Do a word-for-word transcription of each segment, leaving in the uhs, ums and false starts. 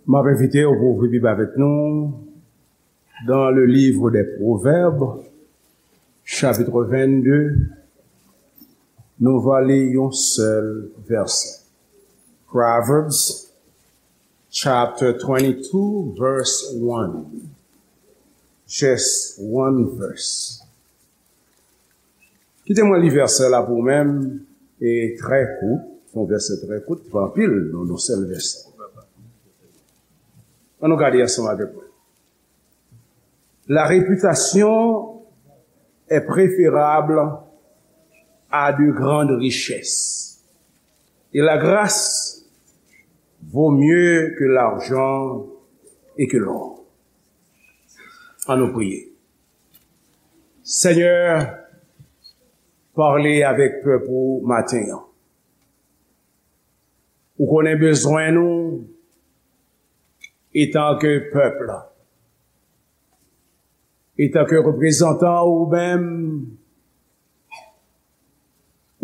M ap envite w pou w ouvri Bib avèk nou dans le livre des Proverbes, chapitre vingt-deux. Nou va li yon sèl vèsè. Proverbs chapter twenty-two, verse one. Just one verse. Kite mwen li vèsè la pou ou menm, e trè kout, se yon vèsè trè kout, pa anpil, nan yon sèl vèsè. Ann nou gade ansanm avèk mwen. La réputation est préférable à de grandes richesses, et la grâce vaut mieux que l'argent et que l'or. Ann nou priye. Senyè, pale avèk pèp ou maten an. Ou konnen bezwen nou etanke pèp la. Etanke reprezantan ou menm,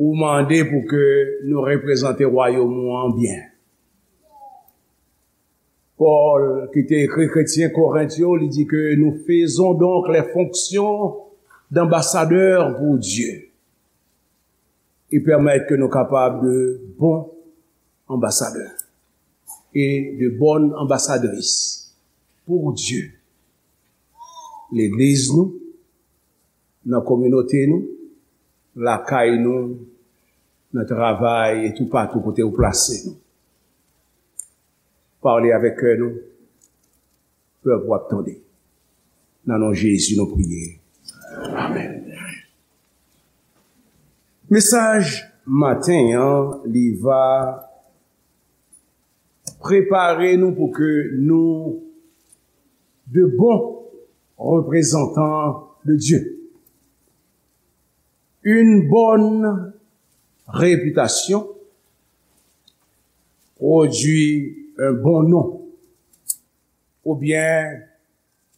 ou mande pou ke nou reprezante wayòm ou an byen. Pòl, ki te ekri kretyen Korent yo, li di ke nous faisons donc les fonctions d'ambassadeurs pour Dieu. E pèmèt ke nou kapab de bons ambassadeurs et de bonnes ambassadrices pour Dieu. Legliz nou, nan kominote nou, lakay nou, nan travay e toupatou kote ou plase nou. Pale avèk kè nou, pèp ou ap tande. Nan non Jezi nou priye. Amèn. Mesaj maten an, li va prepare nou pou ke nou de bons représentants de Dieu. Une bonne réputation produit un bon nom, oubyen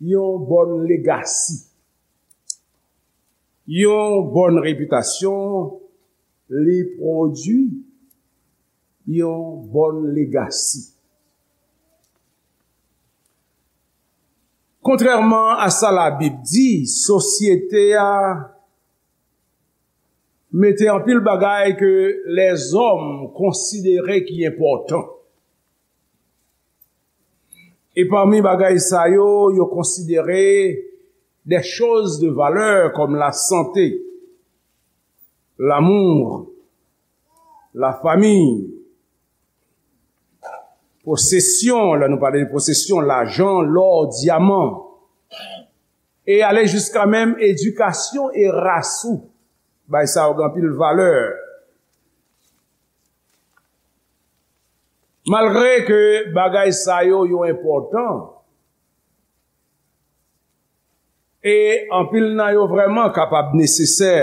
yon bòn legasi. Yon bòn repitasyon, li pwodui yon bòn legasi. Kontrèman a sa Labib di, sosyete a mete anpil bagay ke lèzòm konsidere ki enpòtan. E pami bagay sa yo, yo konsidere des choses de valeur comme la santé, l'amour, la famille, posesyon, lè nou pale de posesyon, lajan, lò, dyaman, e ale jiska menm edikasyon e ras ou. Bay sa yo gen anpil valè. Malgre ke bagay sa yo, yo enpòtan, e anpil nan yo vrèman kapab nesesè,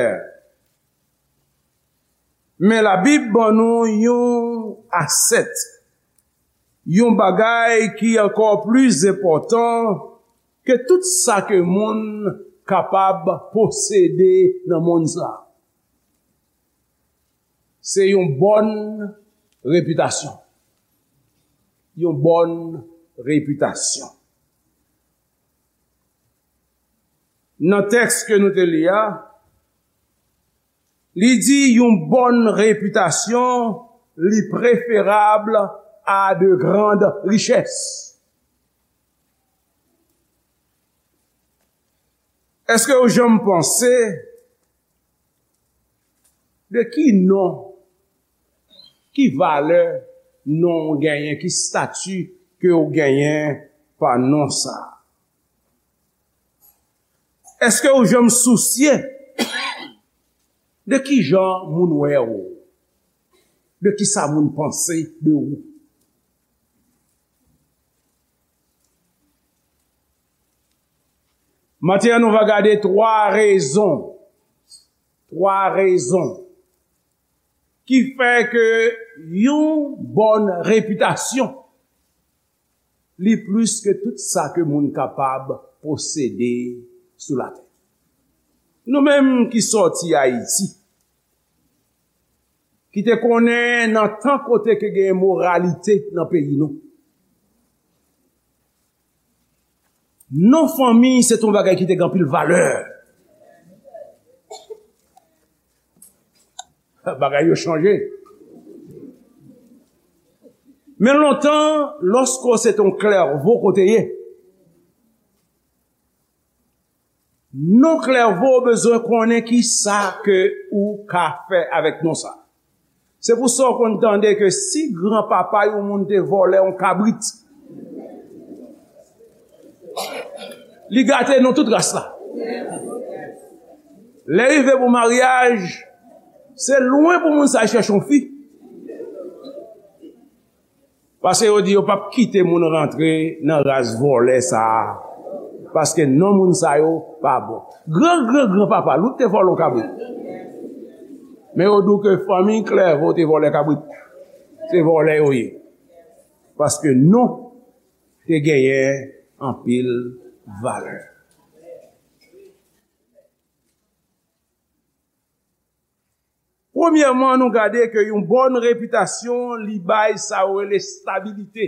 men Labib ban nou yon asèt, yon bagay ki ankò pli enpòtan ke tout sa ke moun kapab posede nan mond sa a. Se yon bòn repitasyon. Yon bòn repitasyon. Nan tèks ke nou te li a, li di yon bòn repitasyon, li preferab a de grandes richesses. Èske ou janm panse de ki non, ki valè non w genyen, ki stati ke w genyen pa non sa a? Èske ou janm sousye de ki jan moun wè w? De ki sa moun panse de ou? Maten an, nou va gade twa rezon, twa rezon ki fè ke yon bòn repitasyon, li plis ke tout sa ke moun kapab posede sou latè. Nou menm ki sòti Ayiti, ki te konnen nan tan kote ke gen moralite nan peyi nou, Non fanmi se t yon bagay ki te gen anpil valè. Bagay yo chanje. Men lontan, lòske w se t yon klèvo ke w te ye, non klèvo bezwen konnen ki sa ke ou ka fè avèk non sa. Se pou sa w konn tande ke si granpapa yon moun te vòlè yon kabrit, li gate non tout ras la. Lè rive pou maryaj, se lwen pou moun sa chèche yon fi. Paske yo di yo p ap kite moun rantre nan ras vòlè sa a. Paske non moun sa yo pa bon. Gran, gran, granpapa l wi te vòlè yon kabrit. Men yo di w ke fanmi klèvo te vòlè kabrit. Se vòlè yo ye. Paske non te genyen anpil valè. Premyèman, nou gade ke yon bòn repitasyon, li bay sa yo rele stabilite.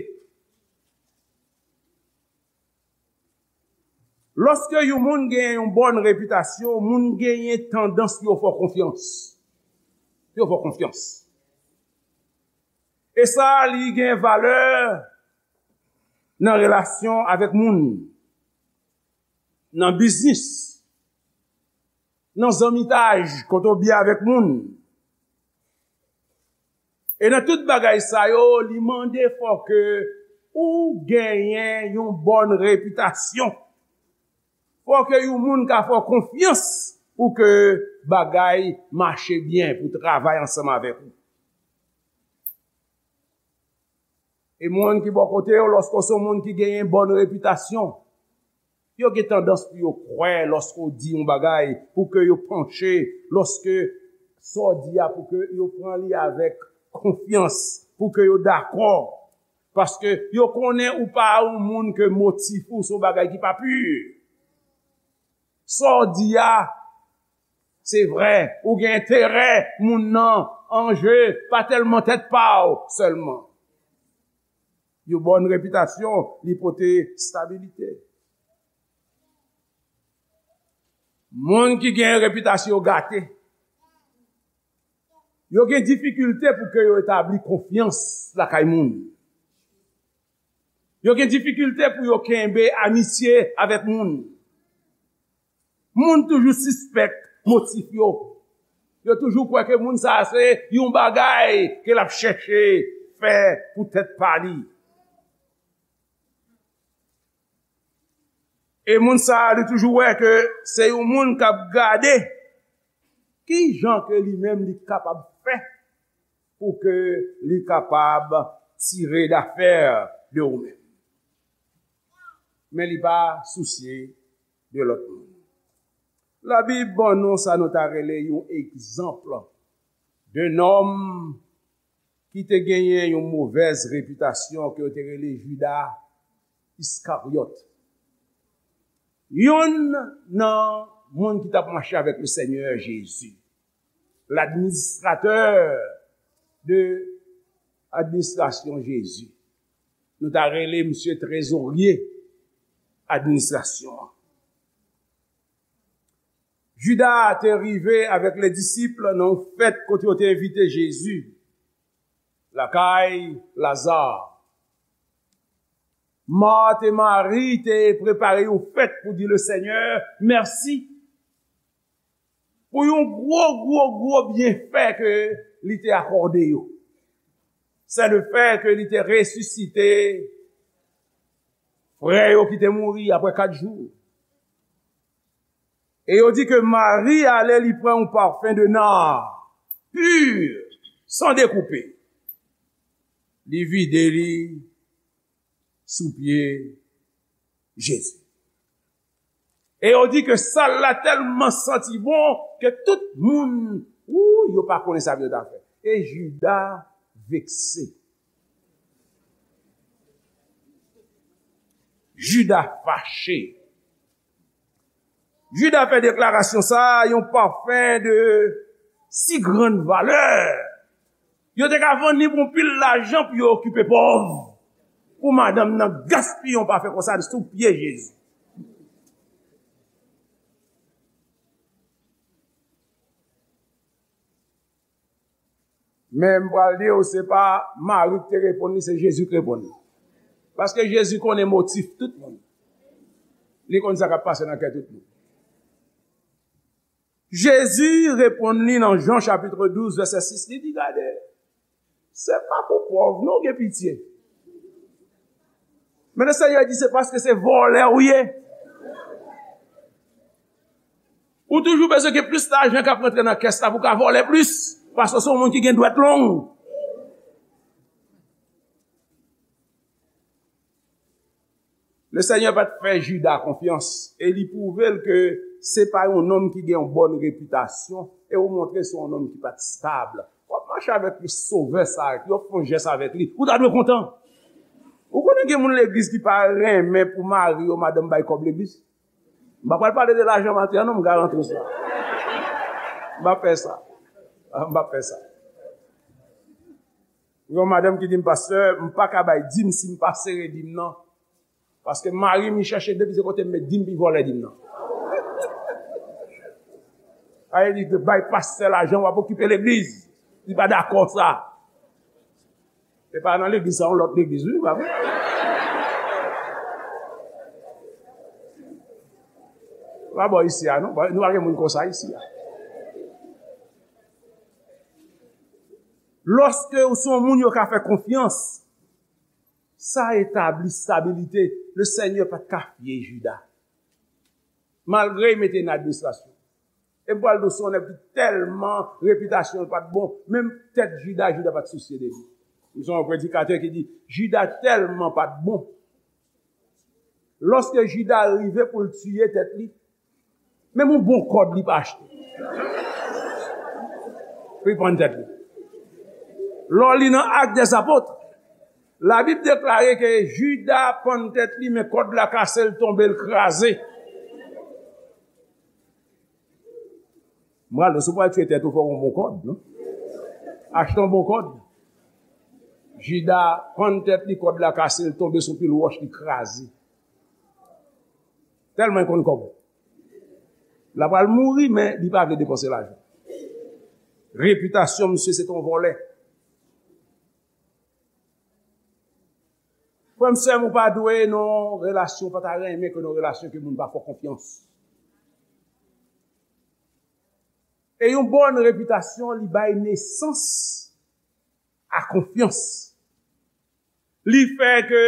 Lòske yon moun genyen yon bòn repitasyon, moun genyen tandans pou yo fè w konfyans. Yo fè w konfyans. E sa, li gen valè nan relasyon avèk moun, nan biznis, nan zanmitaj, kote w byen avèk moun. E nan tout bagay sa yo, li mande fò ke ou genyen yon bòn repitasyon. Fò ke yon moun ka fè w konfyans pou ke bagay mache byen, pou travay ansanm avèk ou. E moun ki bò kote w, lòske w se yon moun ki genyen bòn repitasyon, yo gen tandans pou yo kwè lòske w di yon bagay, pou ke yo panche, lòske sa w di a, pou ke yo pran li avèk konfyans, pou ke yo dakò. Paske yo konnen ou pa yon moun ke motif ou se yon bagay ki pa pi. Sa w di a, se vrè, ou gen enterè moun nan an je, pa tèlman tèt pa w sèlman. Yon bòn repitasyon, li pote stabilite. Moun ki gen repitasyon yo gate, yo gen difikilte pou ke yo etabli konfyans lakay moun. Yo gen difikilte pou yo kenbe amitye avèk moun. Moun toujou sispèk motif yo. Yo toujou kwè ke moun sa a se yon bagay ke l ap chèche fè pou tèt pa li. E moun sa a, li toujou wè ke se yon moun k ap gade ki jan ke li menm li kapab fè pou ke li kapab tire dafè de ou menm. Men li pa sousye de lòt moun. Labib ban nou sa nou ta rele yon egzanp de nonm ki te genyen yon movèz repitasyon ke yo te rele Jida Iskaryòt. Yonn nan moun ki t ap mache avèk le Senyè Jezi. L'administrateur de administrasyon Jezi. Nou ta rele misye trezorye administrasyon an. Jida te rive avèk le disip nan yon fèt kote yo te envite Jezi lakay Laza. Mat e Mari te prepare yon fèt pou di le Senyè mèsi pou yon gwo, gwo, gwo byenfè ke li te akòde yo. Se le fè ke li te resisite frè yo ki te mouri apre kat jou. E yo di ke Mari ale, li pran yon pafen de nar, pur, san dekoupe. Li vide li sou pye Jezi. E yo di ke sal la tèlman santi bon ke tout moun, ou, yo pa konnen sa pou yo ta fè. E Jida vekse. Jida fache. Jida fè deklarasyon sa a, yon pafen de si grann valè. Yo te ka vann li pou yon pil lajan pou yo okipe pòv. Pou madanm nan gaspiye yon pafen konsa sou pye Jezi. Men m pral di w, se pa Mari ki te reponn li, se Jezi ki reponn li. Paske Jezi konnen motif tout moun. Li konn sa k ap pase nan kè tout moun. Jezi reponn li nan Jan chapit douz, vèsè sis, li di, gade, se pa pou pòv non w gen pitye. Men Lesenyè di, se paske se vòlè w ye. Ou toujou bezwen gen plis lajan k ap rantre nan kès la pou w ka vòlè plis, paske w se yon moun ki gen dwèt long. Lesenyè pa t fè Jida konfyans e li pwouve l ke se pa yon nonm ki gen yon bòn repitasyon e ou montre se yon nonm ki pa t stab. W ap mache avèk Sovè sa a, yo fè yon jès avèk li, ou ta dwe kontan. Ou konnen gen moun legliz ki pa renmen pou mari yo, madanm bay kòb legliz? M pa pral pale de lajan maten an non, m garanti w sa. M pa fè sa. M pa fè sa. Yon madanm ki di m, pastè, m pa ka bay dim si m pa sere dim nan. Paske mari m, li chèche depi se kote m met dim, li vòlè dim nan. Sa vle di, bay pastè lajan, w ap okipe legliz. Li pa dakò sa. E pa nan legliz sa, yon lòt legliz, wi, pa vre? Pa bò isi a, non. Nou pa gen moun konsa isi a. Lòske ou se yon moun yo ka fè konfyans, sa etabli stabilite. Lesenyè pa t ka fye Jida. Malgre li mete nan administrasyon. E m pral di w, se yon nèg ki tèlman repitasyon l pa t bon, menm tèt Jida, Jida pa t sousye de li. M se yon predikatè ki di, Jida tèlman pa t bon. Lòske Jida rive pou l tiye tèt li, menm yon bon kòd li pa achte. Pou li pann tèt li. Lè w li nan Actes des Apôtres, Labib deklare ke Jida pann tèt li, men kòd la kase, l tonbe, l kraze. M pral di w, si w pral tiye tèt ou, fò w gen yon bon kòd, non? Achte yon bon kòd. Jida pann tèt li, kòd la kase, l tonbe sou pil wòch, li kraze. Tèlman l konn kòb. L ap pral mouri, men li pa vle depanse lajan. Repitasyon misye se t yon vòlè. Frè m, sè m, ou pa dwe nan relasyon, ou pa ta renmen ke nan relasyon ke moun pa fè w konfyans. E yon bòn repitasyon, li bay nesans a konfyans. Li fè ke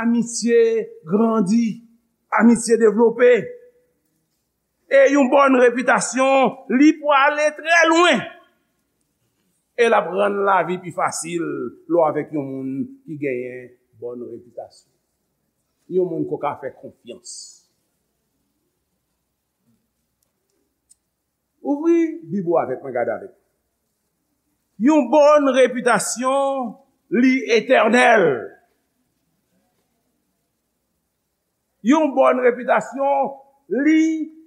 amitye grandi, amitye devlope. E yon bòn repitasyon, li pwale trè lwen. E l ap rann lavi pi fasil lè w avèk yon moun ki genyen bòn repitasyon. Yon moun ke w ka fè konfyans. Ouvri Bib ou avèk mwen, gade avèk mwen. Yon bòn repitasyon, li etènèl. Yon bòn repitasyon, li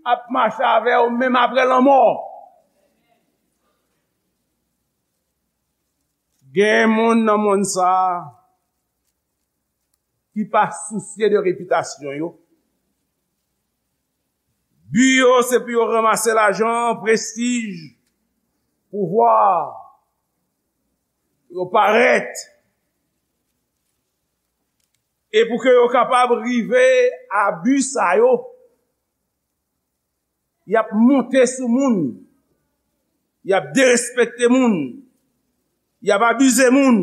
ap mache avè w menm apre lanmò. Gen moun nan monn sa a ki pa sousye de repitasyon yo. Bi yo, se pou yo ranmase lajan, prestij, pouvwa, pou yo parèt. E pou ke yo kapab rive a bi sa yo, y ap monte sou moun, y ap derespekte moun, y ap abize moun,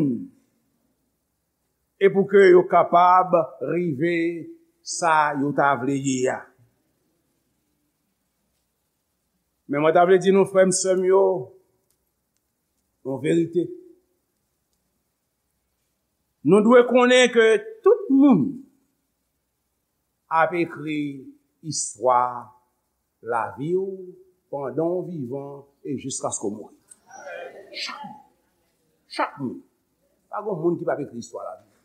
e pou ke yo kapab rive sa yo ta vle ye a. Men mwen ta vle di nou, frè m, sè m yo, yon verite. Nou dwe konnen ke tout moun ap ekri istwa lavi w pandan w vivan e jiskaske w mouri. Chak moun. Chak moun. Pa gen moun ki p ap ekri istwa lavi w.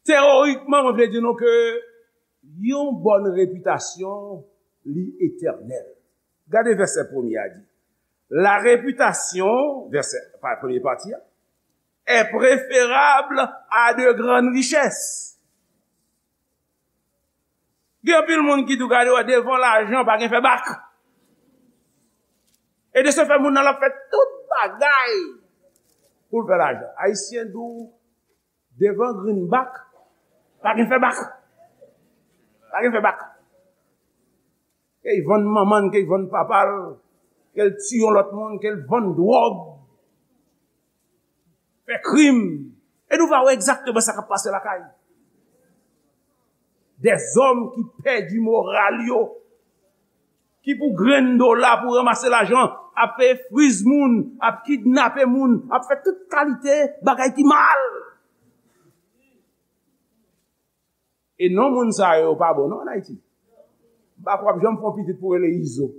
Teyorikman, mwen vle di nou ke yon bòn repitasyon, li etènèl. Gade vèsè premye a di, la réputation, vèsè, pa, premye pati a, est préférable à de grandes richesses. Gen anpil moun ki tou gade wè devan lajan pa gen fè bak. E de se fè, moun nan l ap fè tout bagay pou l fè lajan. Ayisyen di w, devan greenback, pa gen fè bak. Pa gen fè bak. Ke l vann manman l, ke l vann papa l, ke l tiye yon lòt moun, ke l vann dwòg, fè krim. E nou va wè egzakteman sa k ap pase lakay. Dèzòm ki pèdi moral yo, ki pou grenn dola, pou ranmase lajan, ap peye friz moun, ap kidnape moun, ap fè tout kalite bagay ki mal. E non moun sa yo pa bon non ann Ayiti. M pa kwè w ap janm fè yon pitit pou rele Izo.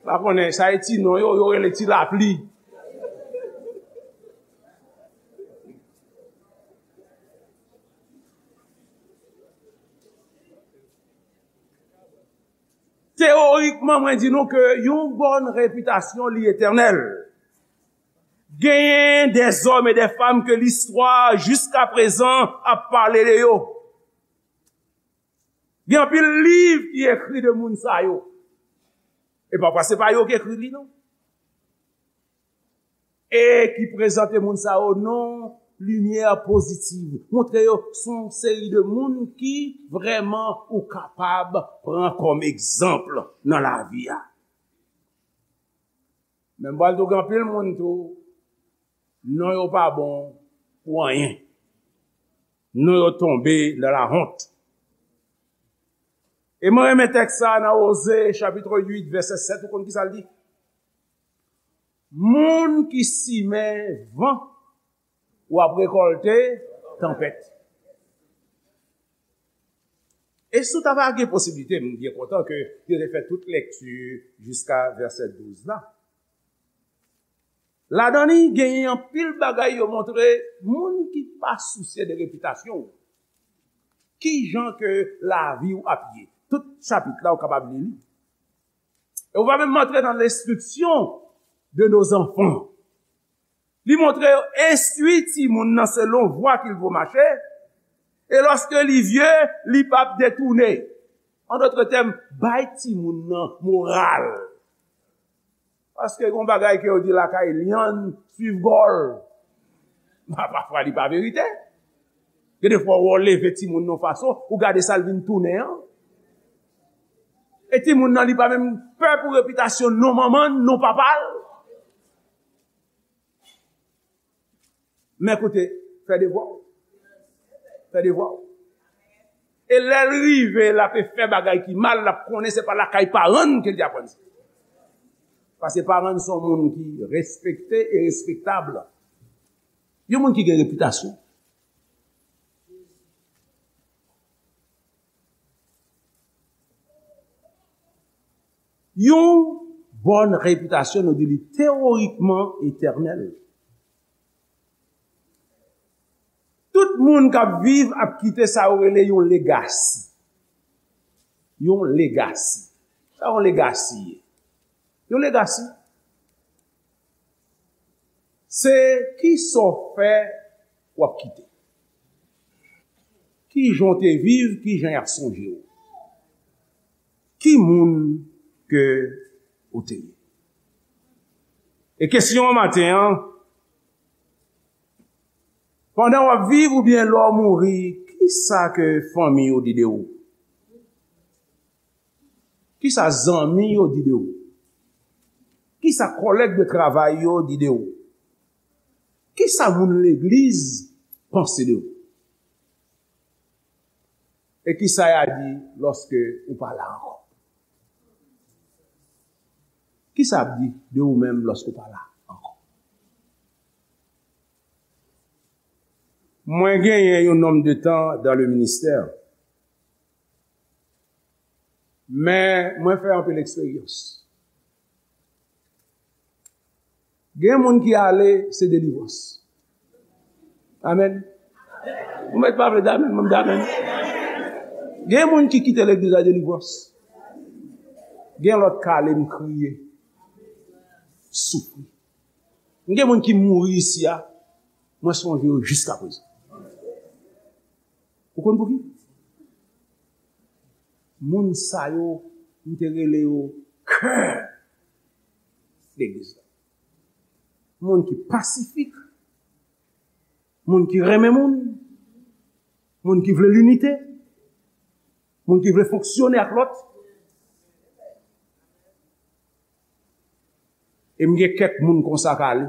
M pa konnen, sa e ti non yo, yo rele Ti Lapli. Teyorikman, mwen di nou ke yon bòn repitasyon li etènèl. Genyen dèzòm e dèfanm ke listwa jiskaprezan ap pale de yo. Gen anpil liv ki ekri de moun sa yo. E pafwa se pa yo ki ekri li non. E ki prezante moun sa yo nan limyè pozitiv. Montre yo se yon seri de moun ki vrèman ou kapab pran kòm egzanp nan lavi a. Men m pral di w gen anpil moun tou, non yo pa bon pou anyen. Non yo tonbe nan lahont. E mwen renmen tèks sa nan Oze, chapit uit, vèsè sèt, ou konn ki sa l di? Moun ki simen van, w ap rekòlte tanpèt. E si w ta va gen posiblite, m byen kontan ke yo te fè tout lèkti jiska vèsè douz la. Ladan li, genyen anpil bagay yo montre moun ki pa sousye de repitasyon w. Ki jan ke lavi w ap ye? Tout chapit la, ou kapab li li. E ou va menm antre nan lenstriksyon de nos enfants. Li montre yo enstwi timoun nan selon vwa ke l vo mache, e lòske li vye, li p ap detounen. An dòt tèm, bay timoun nan moral. Paske gon bagay ke yo di lakay lyann swiv gòl. Pafwa li pa verite. Gen de fwa w leve timoun nan yon fason, ou gade sa l vin tounen an. E timoun nan li pa menm pè pou repitasyon non manman l, non papa l. Men koute, fè devwa w. Fè devwa w. E lè l rive, l ape fè bagay ki mal, l ap konnen se pa lakay paran l ke l te aprann sa. Paske paran l se yon moun ki respekte e respektab. Yon moun ki gen repitasyon. Yon bòn repitasyon, nou di li teyorikman etènèl. Tout moun k ap viv ap kite sa yo rele yon legasi. Yon legasi. Sa yon legasi ye? Yon legasi, se kisa w fè w ap kite. Ki jan w te viv, ki jan y ap sonje w. Ki moun ke ou te ye. E kesyon an maten an, pandan w ap viv oubyen lè w mouri, kisa ke fanmi w di de ou? Kisa zanmi yo di de ou? Kisa kòlèg de travay yo di de ou? Kisa moun legliz panse de ou? E kisa y a di lòske ou pa la ankò? Kisa y ap di de ou menm lòske ou pa la ankò? Mwen genyen yon nonm de tan dans le ministère. Men mwen fè anpil eksperyans. Gen moun ki ale, se delivrans. Amèn. Ou mèt pa vle damèn, mwen damèn. Gen moun ki kite legliz la delivrans. Gen lòt k ale, m kriye, soufri. Gen moun ki mouri isi a, mwen sonje yo jiskaprezan. Ou konn pouki? Moun sa yo, m te rele yo kè legliz la. Moun ki pasifik, moun ki renmen moun, moun ki vle linite, moun ki vle fonksyone ak lòt. E m gen kèk moun konsa k ale.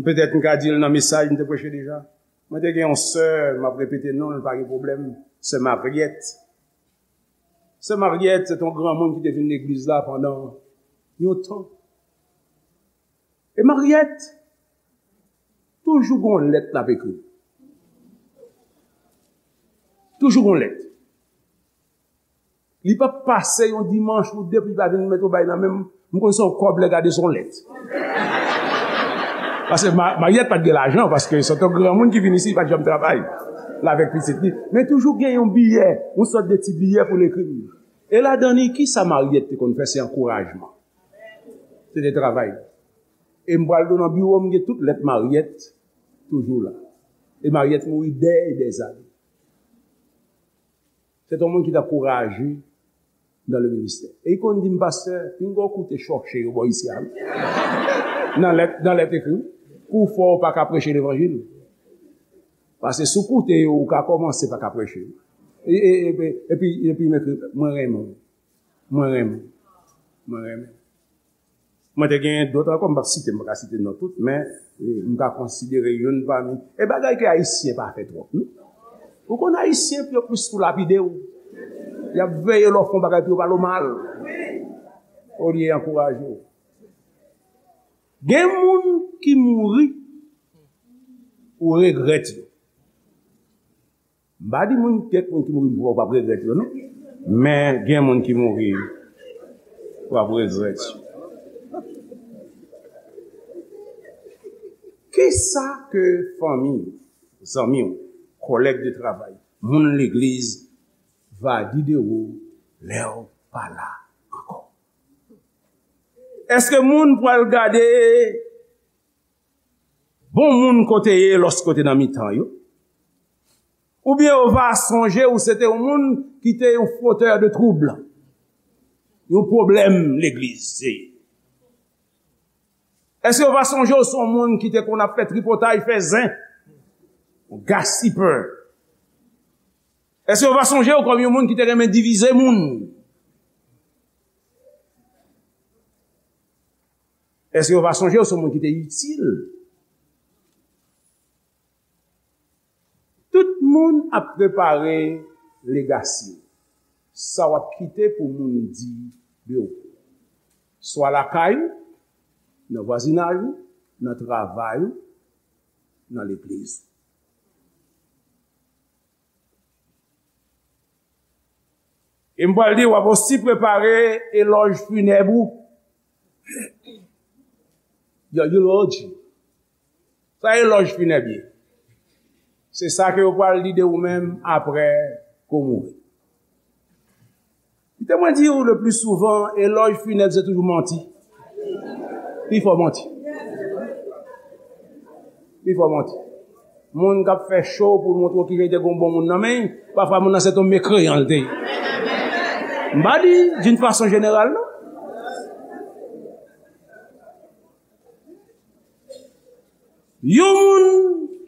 Petèt m ka di l nan mesaj m te preche deja. Mwen te gen yon sè, m ap repete non l, pa gen pwoblèm, sè Mariette. Sè Mariette, se te yon granmoun ki te vin legliz la pandan yon tan. E Mariette, toujou gon lèt l ap ekri. Toujou gon lèt. Li p ap pase yon dimanch ou de pou li pa vin met yon bay nan men m. M konn se yon kòb lè gade se yon lèt. Paske Ma- Mariette pa t gen lajan, paske se te yon granmoun ki vin isi, li pa t janm travay. L avèk pitit li. Men toujou gen yon biyè, yon sòt de ti biyè pou l ekri m. E ladan li, kisa Mariette te konn fè? Se ankourajman. Se te travay. E m pral tou nan biwo, m gen tout lèt Mariette toujou la. E Mariette mouri dè e dè zane. Se te yon moun ki t ankouraje dans le ministère. E li konn di m, pastè, pinga w koute chòche yo bò isi a, wi. Nan lèt, nan lèt ekri, wi. Kou fò w pa ka preche levanjil. Paske si w koute yo, ou ka kòmanse pa ka preche. E, e, e, epi, epi, m ekri, mwen renmen w. Mwen renmen w. Mwen renmen w. Mwen te gen dòt ankò, m p ap site, m pa ka site non tout, men, e, m ka konsidere youn pami. E bagay ke Ayisyen pa fè twòp, non? Ou konn Ayisyen, yo plis pou lapide w. Y ap veye lè w fè yon bagay pou yo pale w mal. Olye ankouraje w. Gen moun ki mouri, ou regrèt yo. M pa di moun, kèk moun ki mouri pou w, w ap regrèt yo, non. Men gen moun ki mouri, w ap regrèt yo. Kisa ke fanmi, zanmi w, kòlèg de travay, moun legliz va di de ou lè w pa la ankò? Èske moun pral gade bon moun kote ye lòske w te nan mitan yo? Oubyen yo va sonje ou se te yon moun ki te yon fotè de twoub, yon pwoblèm legliz. Èske yo va sonje ou se yon moun ki te konn ap fè tripotay, fè zen, yon gasipè? Èske yo va sonje ou kòm yon moun ki te renmen divize moun? Èske yo va sonje ou se yon moun ki te itil? Tout moun ap prepare legasi w. Sa w ap kite pou moun di de ou. Swa lakay ou, nan vwazinaj ou, nan travay ou, nan legliz ou. E m pral di, w ap osi prepare elòj finèb ou. Your eulogy. Sa elòj finèb ye. Se sa ke yo pral di de ou menm apre ke w mouri. Kite mwen di w, le pli souvan, elòj finèb se toujou manti. Pifò manti. Pifò manti. Moun k ap fè cho pou l montre w kijan li te gen yon bon moun nan men l, pafwa moun nan se t on mekreyan l te ye. M pa di d'une façon générale, non. Yon moun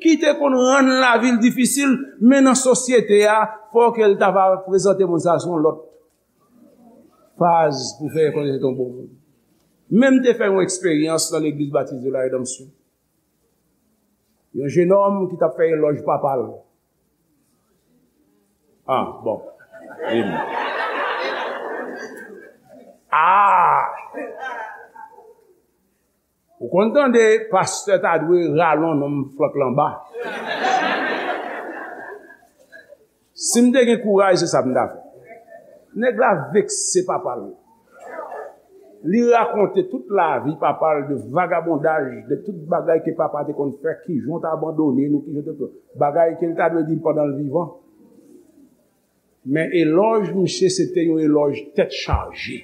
ki te konn rann lavi l difisil, men nan sosyete a, fò ke l ta va prezante moun sa sou yon lòt faz pou fè rekonèt se t on bon moun. Men m te fè yon eksperyans nan Legliz Batis de la Redanmsyon. Yon jenòm ki t ap fè elòj papa l. Ah, bon. Amen. Ah! Ou konn tande pastè ta dwe rale yon nonm flank l anba. Si m te gen kouraj, se sa m ta fè. Nèg la vekse papa l. Li rakonte tout lavi papa l, de vagabondaj, de tout bagay ke papa te konn fè, kijan w t abandone nou, kijan w te, bagay ke l ta dwe di l pandan l vivan. Men elòj misye se te yon elòj tèt chaje.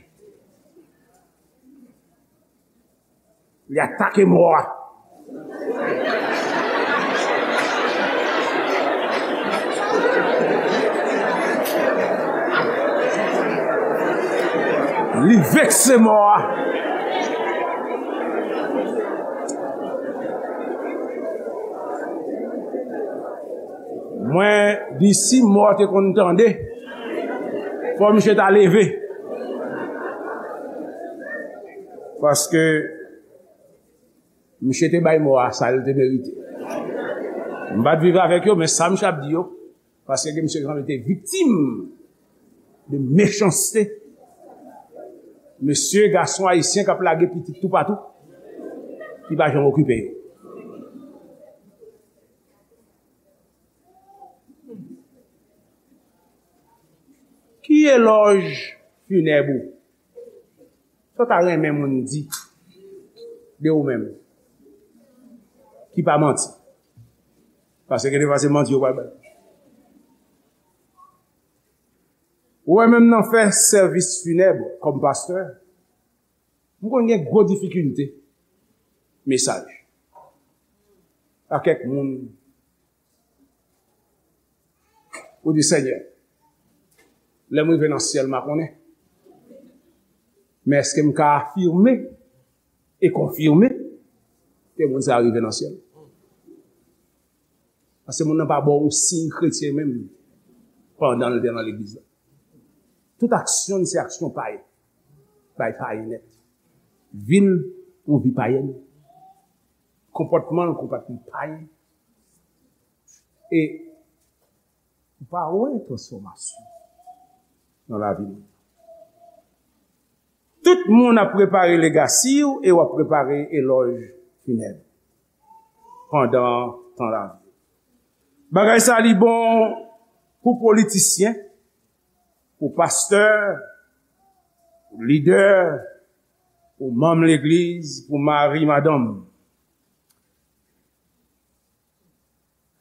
Li atake mò a. Li vekse mò a. Mwen di si mò te konn tande, fò misye ta leve. Paske misye te bay mò a sa l te merite. M pa t viv avèk yo, men sa misye ap di yo, paske gen misye ki sanble te viktim de mechanste. Mesye, gason ayisyen k ap lage pitit toupatou, ki pa janm okipe yo. Ki elòj finèb ou? Sa w ta renmen moun di de ou menm? Ki pa manti. Paske gen de fwa se manti yo pral bay. Ou wè menm nan fè sèvis finèb kòm pastè, m konn gen gwo difikilte mesaj. A kèk moun, ou di, Senyè, lè m rive nan syèl, m a konnen. Men èske m ka afime e konfime ke moun sa a rive nan syèl? Paske moun nan pa ba w yon siy kretyen menm pandan l te nan legliz la. Tout aksyon l se aksyon payen. Bay payen nèt. Vi l, yon vi payèn. Konpòtman l, konpòtman payen. E ou pa wè transfòmasyon nan lavi moun. Tout moun ap prepare legasi w e w ap prepare elòj finèb pandan tan lavi w. Bagay sa li bon pou politisyen, pou pastè, pou lidè, pou manm legliz, pou mari, madanm.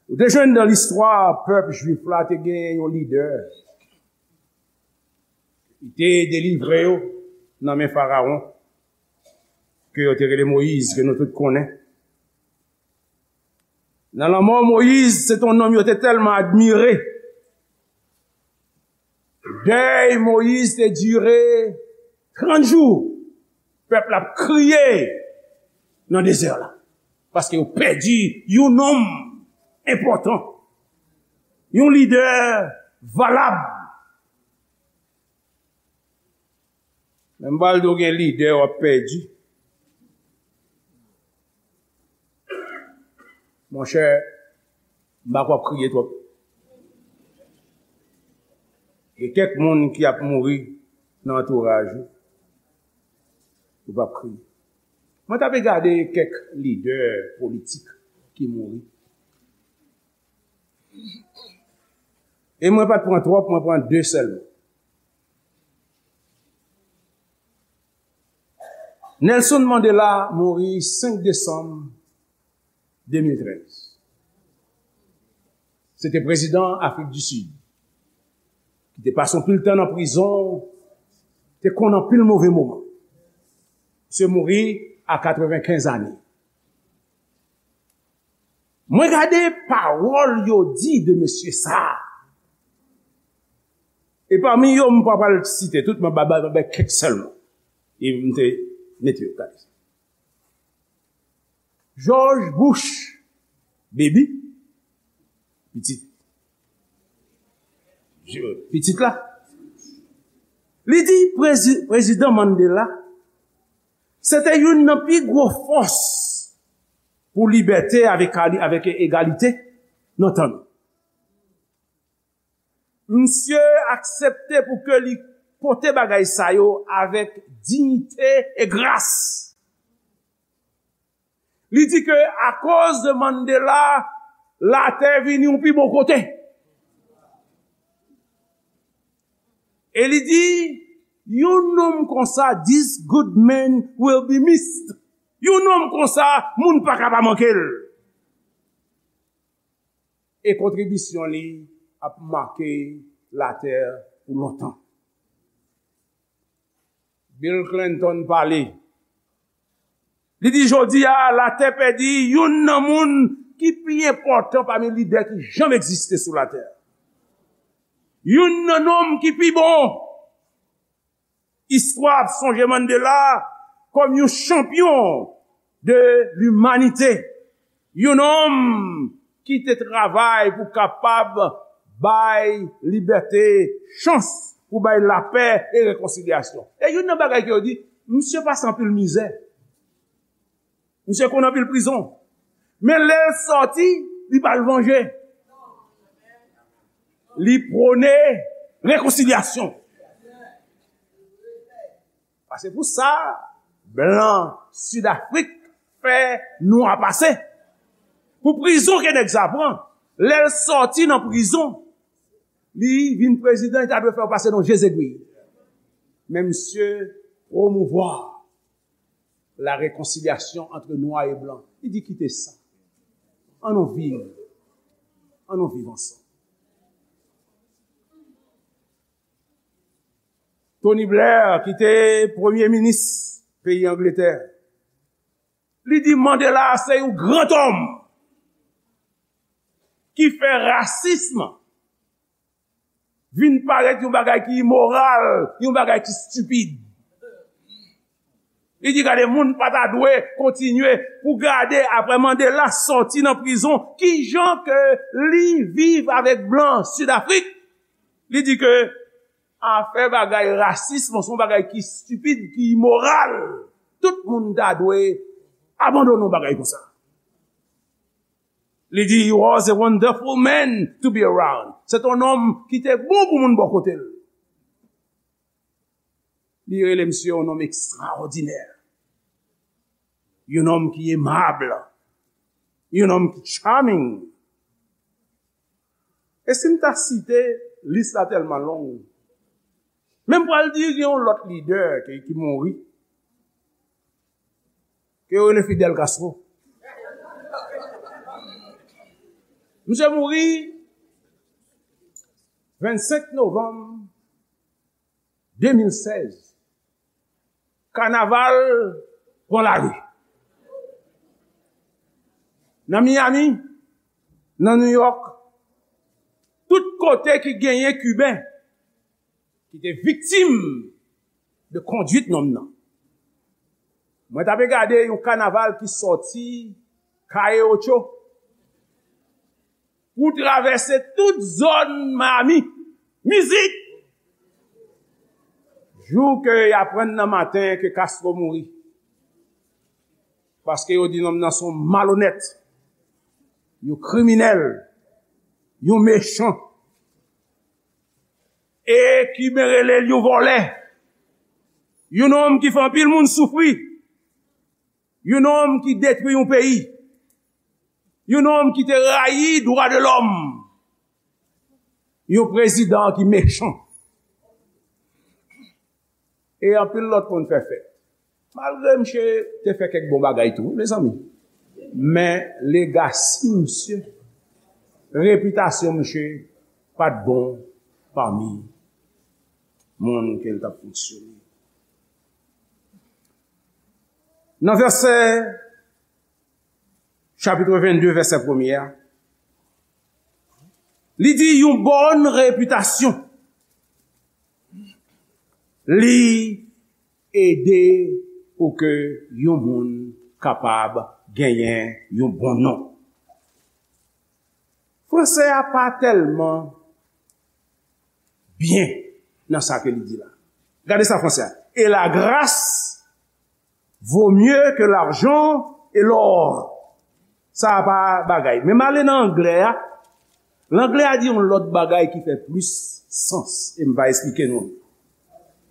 Ou te jwenn nan listwa pèp jwif la te gen yon lidè. Li te delivre yo nan men Farawon, ke yo te rele Moyiz, ke nou tout konnen. Nan lanmò Moyiz, se te yon nonm yo te tèlman admire. Dèy Moyiz te dire trant jou. Pèp la ap kriye nan dezè la. Paske yo pèdi yon nonm enpòtan. Yon lidè valab. Men m pral di w gen lidè w ap pèdi. Monchè, m pa kwè w ap kriye twòp. Gen kèk moun ki ap mouri nan antouraj ou. Ou p ap kriye. Mwen t ap gade kèk lidè politik ki mouri. E mwen pa t pran twòp, mwen pran de sèlman. Nelson Mandela mouri senk desanm de mil trèz. Se te prezidan Afrik di Sid, ki te pase anpil tan nan prizon, te konn anpil move moman. Misye mouri a katrevenkenz ane. Mwen gade pawòl yo di de mesye sa a. E pami yo, m pa pral site tout, mwen ba, ba, ba, ba kèk sèlman. E m te mete yo gade. George Bush, baby, pitit, pitit la, li di prezi-, prezidan Mandela, se te youn nan pi gwo fòs pou libète avèk, avèk egalite nan tan nou. Misye aksepte pou ke li pote bagay sa yo avèk diyite e gras. Li di ke akoz de Mandela, latè vini yon pi bon kote. E li di, yon nonm konsa, this good man will be missed. Yon nonm konsa, moun pa ka pa manke l. E kontribisyon li ap make latè pou lontan. Bill Clinton pale. Li di, jodi a, latè pèdi youn nan moun ki pi enpòtan pami lidè ki janm egziste sou latè. Youn nan nonm ki pi bon. Istwa ap sonje Mandela kòm yon chanpyon de limanite, yon nonm ki te travay pou kapab bay libète chans, pou bay lapè e rekonsilyasyon. E youn nan bagay ke yo di, misye pase anpil mizè. Misye konn anpil prizon. Men lè l sòti, li pa al vanje. Li pwone rekonsilyasyon. Paske pou sa, blan Sidafrik fè nwa pase. Pou prizon ke nèg sa pran, lè l sòti nan prizon, li vin prezidan, li ta dwe fè yo pase nan je zegwi. Men misye pwomouvwa la réconciliation entre nwa e blan. Li di, kite sa. Ann nou viv. Ann nou viv ansanm. Tony Blair, ki te premye minis peyi Angletè, li di Mandela se yon gran òm ki fè rasism vin parèt yon bagay ki imoral, yon bagay ki stipid. Li di, gade, moun pa ta dwe kontinye pou gade, apre Mandela sòti nan prizon, kijan ke li viv avèk blan Sidafrik. Li di ke afè bagay rasism se yon bagay ki stipid, ki imoral. Tout moun ta dwe abandone yon bagay konsa. Li di, he was a wonderful man to be around. Se te yon nonm ki te bon pou moun bò kote l. Li rele misye yon nonm ekstraòdinè. Yon nonm ki emab. Yon nonm ki charming. E si m ta site, lis la tèlman long. Men m pral di gen yon lòt lidè ki, ki mouri. Ke yo rele Fidel Castro. Misye mouri vennsenk novanm de mil sèz. Kanaval pran lari. Nan Miami, nan New York, tout kote ki genyen Kiben ki te viktim de kondwit nonm nan. Mwen t ape gade yon kanaval ki sòti Calle Ocho pou travèse tout zòn Miami. Mizik! Jou ke y aprann nan maten ke Castro mouri. Paske yo di nonm nan se yon malonèt, yon kriminèl, yon mechan. E Kiben rele l yon vòlè. Yon nonm ki fè anpil moun soufri. Yon nonm ki detwi yon peyi. Yon nonm ki te rayi dwa de lòm. Yon prezidan ki mechan. E anpil lòt moun fè fèt. Malgre misye te fè kèk bon bagay tou, wi, mezanmi. Men legasi misye, repitasyon misye pa t bon pami moun ke l t ap fonksyone. Nan vèsè, chapit vennde, vèsè premye a, li di yon bòn repitasyon. Li ede pou ke yon moun kapab genyen yon bon non. Franse a pa tèlman byen nan sa ke li di la. Gade sa franse a. Et la grâce vaut mieux que l'argent et l'or. Sa a pa bagay. Men m ale nan anglè a. Anglè a di yon lòt bagay ki fè plis sans. E m va esplike nou.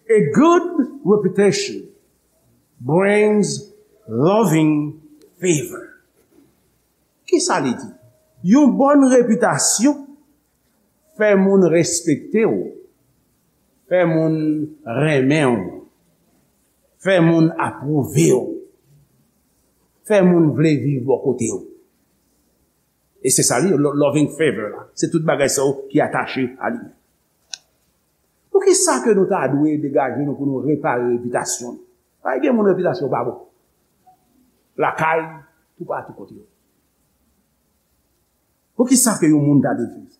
A good reputation brings loving favor. Kisa li di? Yon bòn repitasyon fè moun respekte w, fè moun renmen w, fè moun apwouve w, fè moun vle viv bò kote w. E se sa li, lo-, loving favor la. Se tout bagay sa yo ki atache a li. Poukisa ke nou ta dwe degaje nou pou nou repare repitasyon nou? Pa gen moun repitasyon pa bon. Lakay, toupatou kote yo. Poukisa ke yon moun ta dwe fè sa?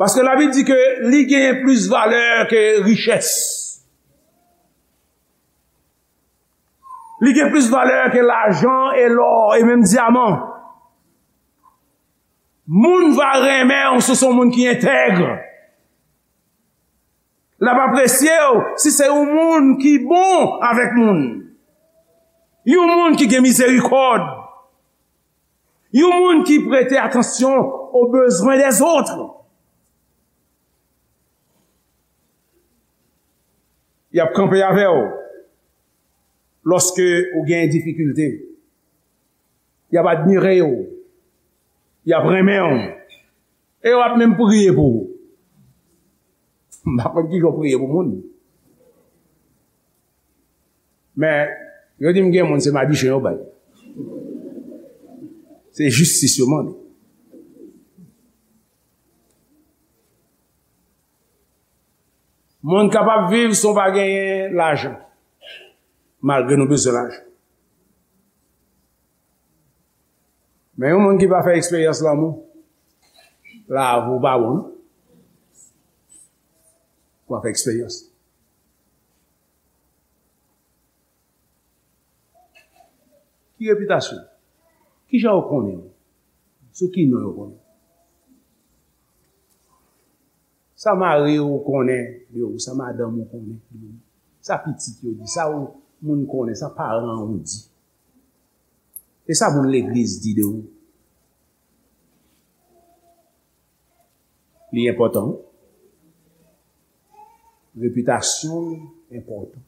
Paske Labib di ke li genyen plis valè ke richès. Li gen plis valè ke lajan e lò e menm dyaman. Moun va renmen w si w se yon moun ki entèg. L ap apresye w si se yon moun ki bon avèk moun. Yon moun ki gen mizerikòd. Yon moun ki prete atansyon aux besoins des autres. Y ap kanpe avè w lòske ou gen difikilte. Y ap admire w. Y ap renmen w. E yo ap menm priye pou ou. M pa konn kijan yo priye pou moun. Men, yo di m gen moun se madichen yo bay. Se jistis yo mande. Moun kapab viv san w pa genyen lajan, malgre nou bezwen lajan. Men yon moun ki pa fè eksperyans lanmou, lavi w pa bon, non. W ap fè eksperyans. Ki repitasyon? Kijan yo konnen w? Sou ki non yo konnen w? Sa mari w konnen de ou, sa madanm ou konnen de ou, sa pitit yo di, sa ou moun konnen, sa paran ou di, e sa moun legliz di de ou. Li enpòtan. Repitasyon enpòtan.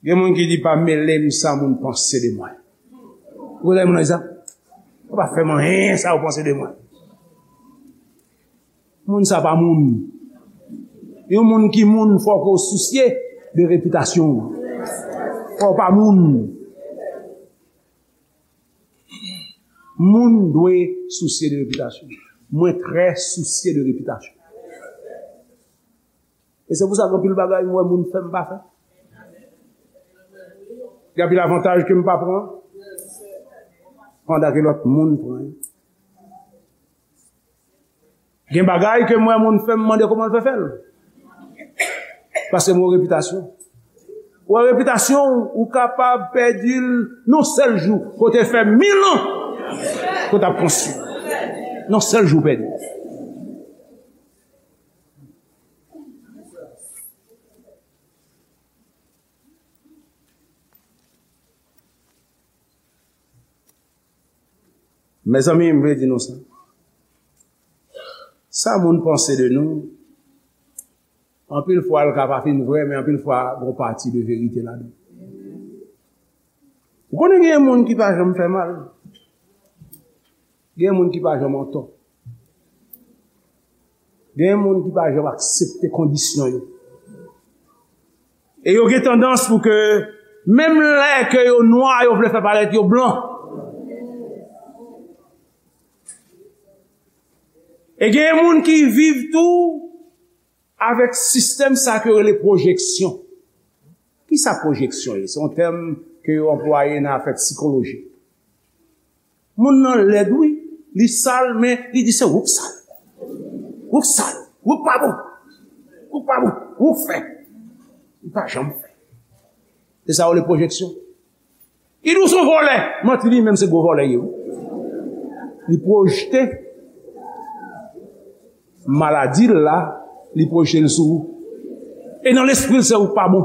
Gen moun ki di, "Pa mele m sa moun panse de mwen." Ou konnen moun sa? "Ou pa fè m anyen sa ou panse de mwen." Moun sa pa moun. Yon moun ki moun, fò ke w sousye de repitasyon w. Fò w pa moun. Moun dwe sousye de repitasyon. Mwen trè sousye de repitasyon. E se pou sa gen anpil bagay m wè moun fè m pa fè. Gen anpil avantaj ke m pa pran, pandan ke lòt moun pran yo. Gen bagay ke m wè moun fè m mande kòman l fè fè l. Paske m wè repitasyon. Ou wè repitasyon ou, ou kapab pèdi l nan sèl jou. Kote fè mil an ke w t ap konstwi. Nan sèl jou w pèdi l. Mezanmi, m vle di nou sa. Sa moun panse de nou, anpil fwa l ka pa fin vrè, men anpil fwa gon pati de verite ladan. Ou konnen gen moun ki pa janm fè mal. Gen moun ki pa janm antò. Gen moun ki pa janm aksepte kondisyon yo. E yo gen tandans pou ke, menm lè ke yo nwa, yo vle fè parèt yo blan. E gen moun ki viv tou avèk sistèm sa ke yo rele pwojeksyon. Kisa pwojeksyon ye? Se yon tèm ke yo anplwaye nan afè sikoloji. Moun nan lèd, wi. Li sal, men li di se ou k sal. Ou k sal. Ou k pa bon. Ou k pa bon. Ou k fè. Li pa janm fè. Se sa yo rele pwojeksyon. Li di w se yon vòlè. Manti, li menm se gwo vòlè li ye, wi. Li pwojte maladi l la, li pwojte l sou ou. E nan lespri l, se ou k pa bon.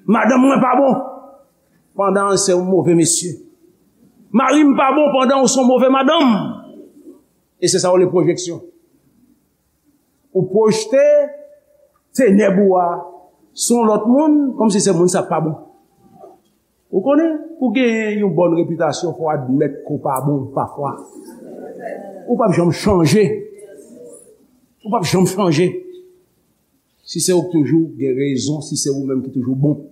Madanm mwen pa bon, pandan se yon move mesye. Mari m pa bon, pandan ou se yon move madanm. E se sa yo rele pwojeksyon. Ou pwojte tenèb ou a sou yon lòt moun, kòmsi se moun sa pa bon. Ou konnen, pou genyen yon bòn repitasyon, fò w admèt ke w pa bon pafwa. Ou p ap janm chanje. Ou p ap janm chanje. Si se ou k toujou gen rezon, si se ou menm ki toujou bon.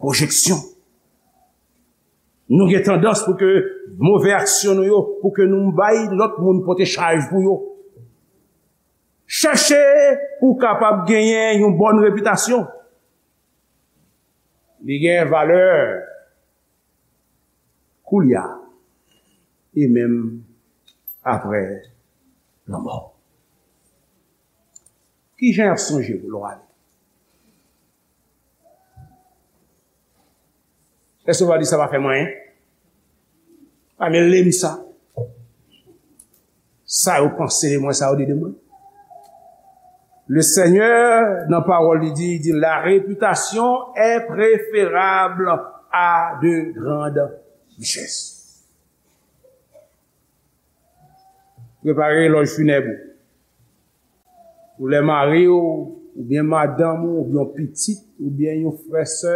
Pwojeksyon. Nou gen tandans pou ke move aksyon nou yo, pou ke nou bay lòt moun pote chaj pou yo. Chèche pou w kapab genyen yon bòn repitasyon. Li gen valè koulye a e menm apre lanmò. Ki jan y ap sonje w lè w ale? Èske w va di sa pa fè m anyen? Pa mele m sa. Sa yo panse de mwen, sa yo di de mwen. Le Senyè, nan pawòl li di, li di, la réputation est préférable à de grandes richesses. Prepare lòj finèb ou. Pou lè mari w, oubyen madanm ou, oubyen yon pitit, oubyen yon frè, sè,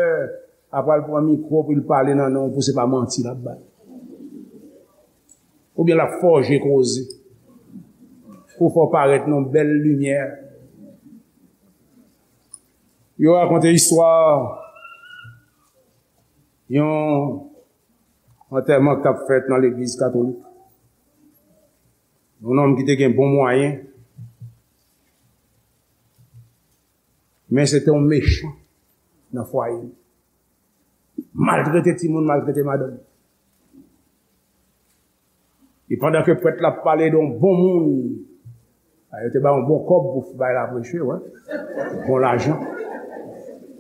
ap al pran mikwo pou l pale nan non w, pou se pa manti l ap bay. Oubyen l ap fòje koze. Pou fè w parèt nan bèl limyè. Yo rakonte istwa yon antèman k t ap fèt nan legliz katolik. Yon nonm ki te gen bon mwayen, men se te yon mechan nan fwaye l. Maltrete timoun, maltrete madanm. E pandan ke prèt la ap pale de yon bon moun, a, yo te ba yon bon kòb pou bay la preche, wè. Bon lajan.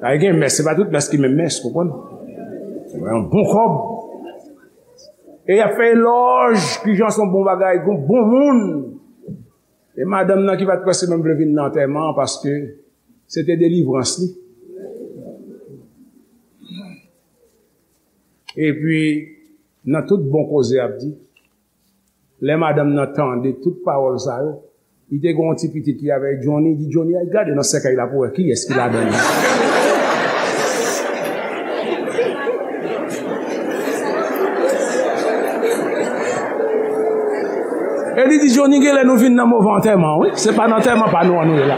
A, gen mès, se pa tout mès ki menm mès, konprann? Wè, yon bon kòb. E y ap fè elòj, kijan se yon bon bagay, yon bon moun. E madanm nan ki pa t prèske menm vle vin nan antèman an, paske se te delivrans li. Epi, nan tout bon koze y ap di, lè madanm nan tande tout pawòl sa yo, li te gen yon ti pitit li avè Johnny, li di Johnny, "Al gade nan sèkèy la pou wè kiyès ki ladan l." E li di, "Johnny, genlè nou vin nan move antèman, wi. Se pa nan antèman pa nou an nou ye la."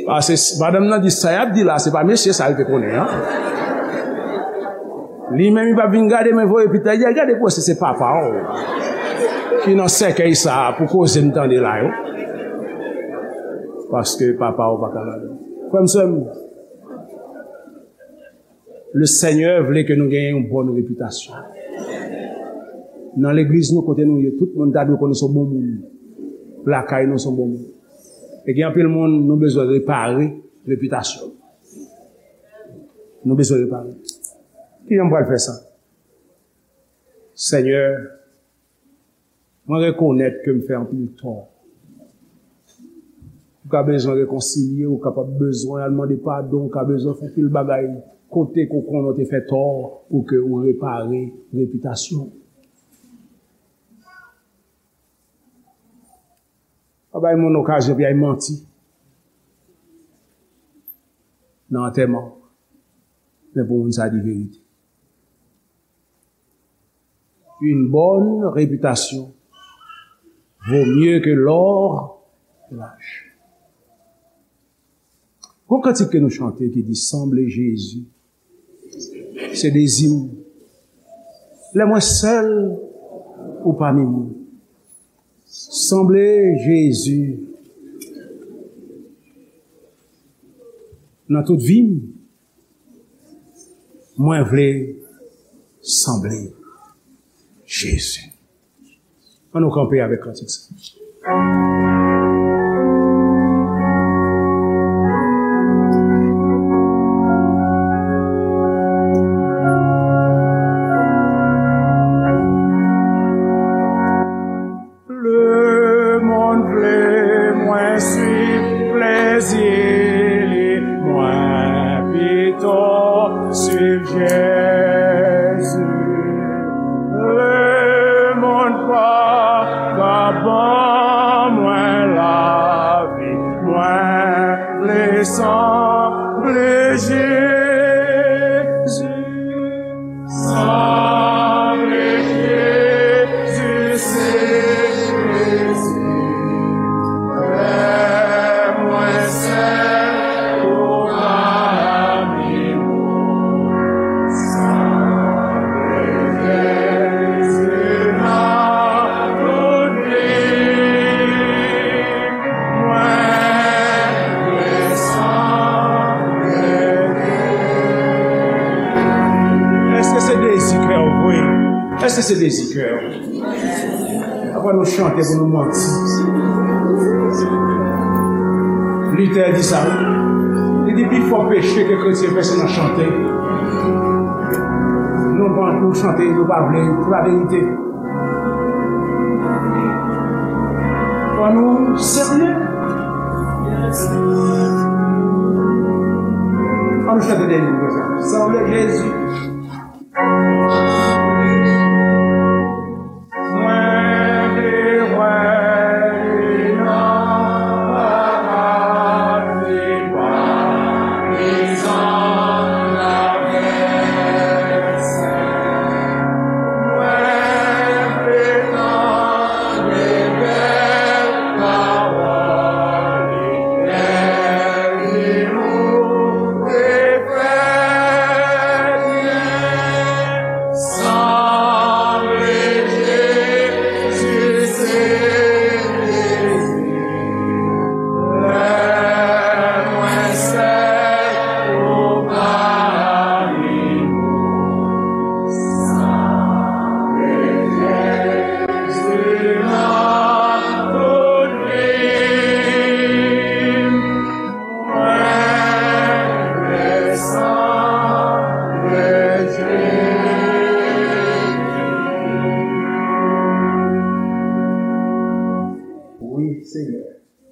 Paske s-, madanm nan di, "Sa y ap di la, se pa mesye sa l te konnen an." Li menm, li p ap vin gade, men voye pita, li di, "Al gade pou wè si se papa w ki nan sèkèy sa a pou koze m tande la yo." Paske papa w pa ka ladan. Frè m, sè m, Le Senyè vle ke nou genyen yon bòn repitasyon. Nan legliz nou, kote nou ye, tout moun ta dwe konnen se yon bon moun. Lakay nou, se yon bon moun. E gen anpil moun, nou bezwen repare repitasyon. Nou bezwen repare. Kijan m pral fè sa? Senyè, mwen rekonèt ke m fè anpil tò. Ou ka bezwen rekonsilye, ou kapab bezwen al mande padon, ou ka bezwen fè anpil bagay kote ke w konnen w te fè tò pou ke ou repare repitasyon w. Pa bay moun okazyon pou y al manti nan antèman w, men pou moun sa di verite. Une bonne réputation vaut mieux que l'or et l'argent. Gon kantik ke nou chante ki di, "Sanble Jezi, se dezi m. Lè mwen sèl, ou pami mwen. Sanble Jezi nan tout vi m." Mwen vle sanble Jezi. Ann nou kanpe avèk kantik sa. Lemonn vle mwen swiv plezi li, mwen pito swiv Jezi. Lemonn pa ka ban mwen lavi, mwen vle sanble Jezi. Sanble Jezi, se plezi. Lè mwen sèl ou pami mwen. Dezi kè w vre. Èske se dezi kè w? Apre nou chante pou nou manti. Luther di sa, wi. Li di, pi fò peche ke kretyen fè, se nan chante. Nou ban nou chante, nou pa vle, se pa verite. Fò nou serye. Fò nou chante dènye nou konsa. Sanble Jezi.